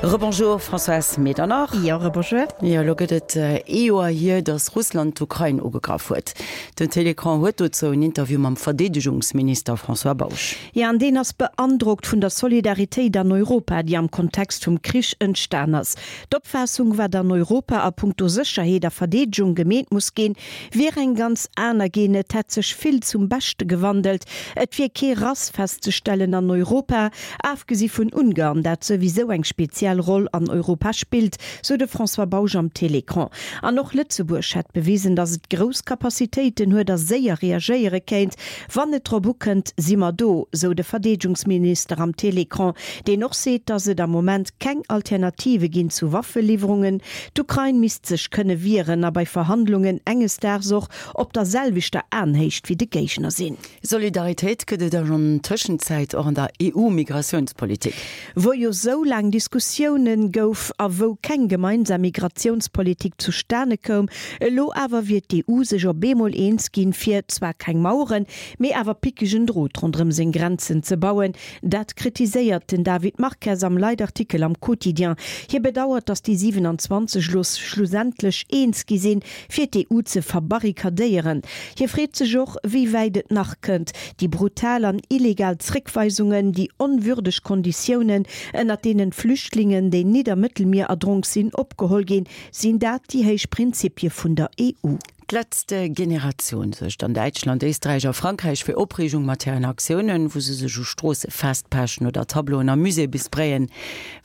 Rebonjour Françoise Medernach. Jo, rebonjour. Jo, elo gëtt et ee Joer hier, datt Russland d'Ukrain ugegraff huet. Den Télécran huet dozou en Interview mam Verdeedegungsminister François Bausch. Jo, an deen ass beandrockt vun der Solidaritéit an Europa, déi am Kontext vum Krich entstan ass. D'Opfaassung, wat an Europa a punkto Sécherheet a Verdeedegung gemeet muss ginn, wier eng ganz aner ginn. Et hätt sech vill zum Beschte gewandelt. Et wier kee Rass festzestellen an Europa, afgesi vun Ungarn, dat souwisou eng speziell Roll an Europa spillt, sou de François Bausch am Télécran. An och Lëtzebuerg hätt bewisen, datt et grouss Capacitéiten huet a séier reagéiere kéint. Wann et drop ukënnt, si mer do, sou de Verdeedegungsminister am Télécran, deen och seet, datt et am Moment keng Alternative ginn zu Waffeliwwerungen. D'Ukrain misst sech kënne wieren a bei Verhandlungen enges Daags och op der selwechter Aenhéicht wéi de Géigner sinn. Solidaritéit gëtt et an Tëschenzäit och an der EU-Migratiounspolitik. Wou jo sou laang Diskussiounen gouf a wou keng gemeinsam Migratiounspolitik zustane koum. Elo awer wier d'EU sech op eemol eens ginn, fir zwar keng Maueren, mee awer pickegen Drot ronderëm seng Grenzen ze bauen. Dat kritiséiert den David Marques am Leitartikel am Quotidien. Hie bedauert, datt déi 27 elo schlussendlech eens gi sinn, fir d'EU ze verbarrikadéieren. Hie freet sech och, wéi wäit et nach kënnt, déi brutal an illegal Zréckweisungen, déi onwürdeg Konditiounen, ënnert deenen d'Flüchtlingen, déi nit am Mëttelmier erdronk sinn, opgeholl ginn. Sinn dat déi héich Prinzipie vun der EU? D'Letzte Generation suergt an Däitschland, Éisträich a Frankräich fir Opreegung mat hiren Aktiounen, wou se sech u Stroosse festpechen oder Tableauen a Muséeë besprayen.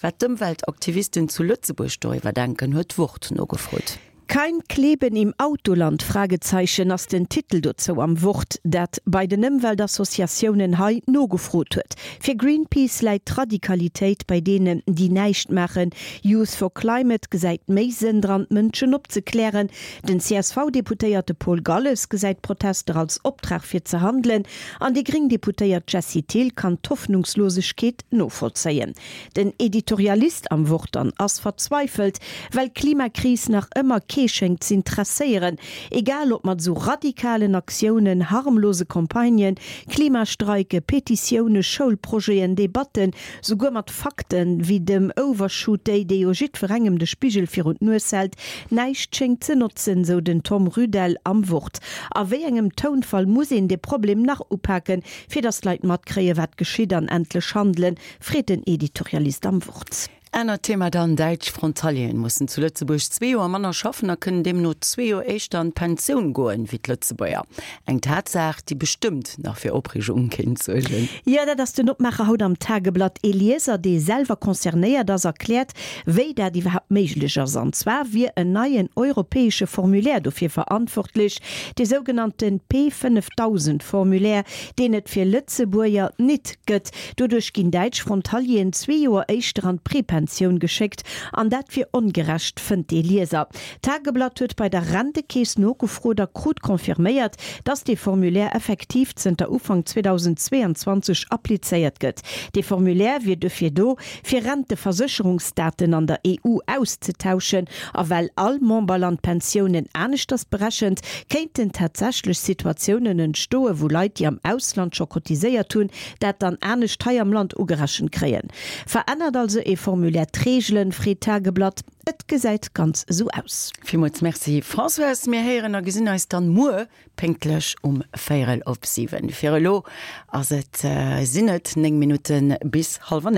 Wat d'Ëmweltaktivisten zu Lëtzebuerg doriwwer denken, huet d'Wort nogefrot. Kein Kleben im Autoland? Fragezeichen ass den Titel dozou am Wort, dat bei den Ëmweltassociatiounen hei nogefrot huet. Fir Greenpeace läit d'Radikalitéit bei deenen, déi näischt maachen. Youth for Climate gesäit méi Sënn dran, d'Mënschen opzeklären. Den CSV-Deputéierte Paul Galles gesäit d'Protester als Optrag fir ze handelen an déi gréng Deputéiert Jessie Thill kann d'Hoffnungslosegkeet novollzéien. Den Editorialist am Wort dann ass verzweifelt, well d'Klimakris nach ëmmer kee schéngt z'intresséieren. Egal ob mat esou radikalen Aktiounen, harmlose Campagnen, Klimastreike, Petitioune, Schoulprojeten, Debatten, souguer mat Fakten, wéi dem Overshoot Day, dee jo jiddwerengem de Spigel virun d'Nues hält, näischt schéngt ze notzen, sou den Tom Rudel am Wort. A wéi engem Tounfall muss een de Problem nach upaken, fir datt d'Leit matkréien, wat geschitt an endlech handelen? Freet den Editorialist am Wort. Anert Thema dann, Däitsch Frontalieren mussen zu Lëtzebuerg zwee Joer manner schaffen a kënnen deemno zwee Joer éischter an d'Pensioun goen, wéi d'Lëtzebuerger. Eng Tatsaach, déi bestëmmt nach fir Opreegung kéint suergen. Jo, dat ass den Opmaacher haut am Tageblatt. Ee Lieser, dee selwer concernéiert ass, erkläert, wéi dat iwwerhaapt méiglech ass. An zwar wier en neien europäesche Formulaire dofir verantwortlech, dee sougenannte P 5000 Formulaire, deen et fir Lëtzebuerger nit gëtt. Doduerch ginn däitsch Frontalieren zwee Joer éischter an d'Prepensioun geschéckt, an dat wier ongerecht, fënnt dee Lieser. D'Tageblatt huet bei der Rentekeess nogefrot a krut confirméiert, datt dee Formulaire effektiv zënter Ufank 2022 applizéiert gëtt. Dee Formulaire wier dofir do, fir Renteversécherungsdaten an der EU auszetauschen. A well all Memberland d'Pensiounen aneschters berechent, kéinten tatsächlech Situatiounen entstoen, wou Leit, déi am Ausland scho cotiséiert hunn, dat dann anescht hei am Land ugerechent kréien. Verännert also ee Formulaire d'Reegelen, freet d'Tageblatt. Et gesäit ganz esou aus. Villmools Merci Françoise. Mir héieren a gesinn eis dann muer pénktlech um véierel op 7. Fir elo ass et, sinn et 9 Minutte bis hallwer 9.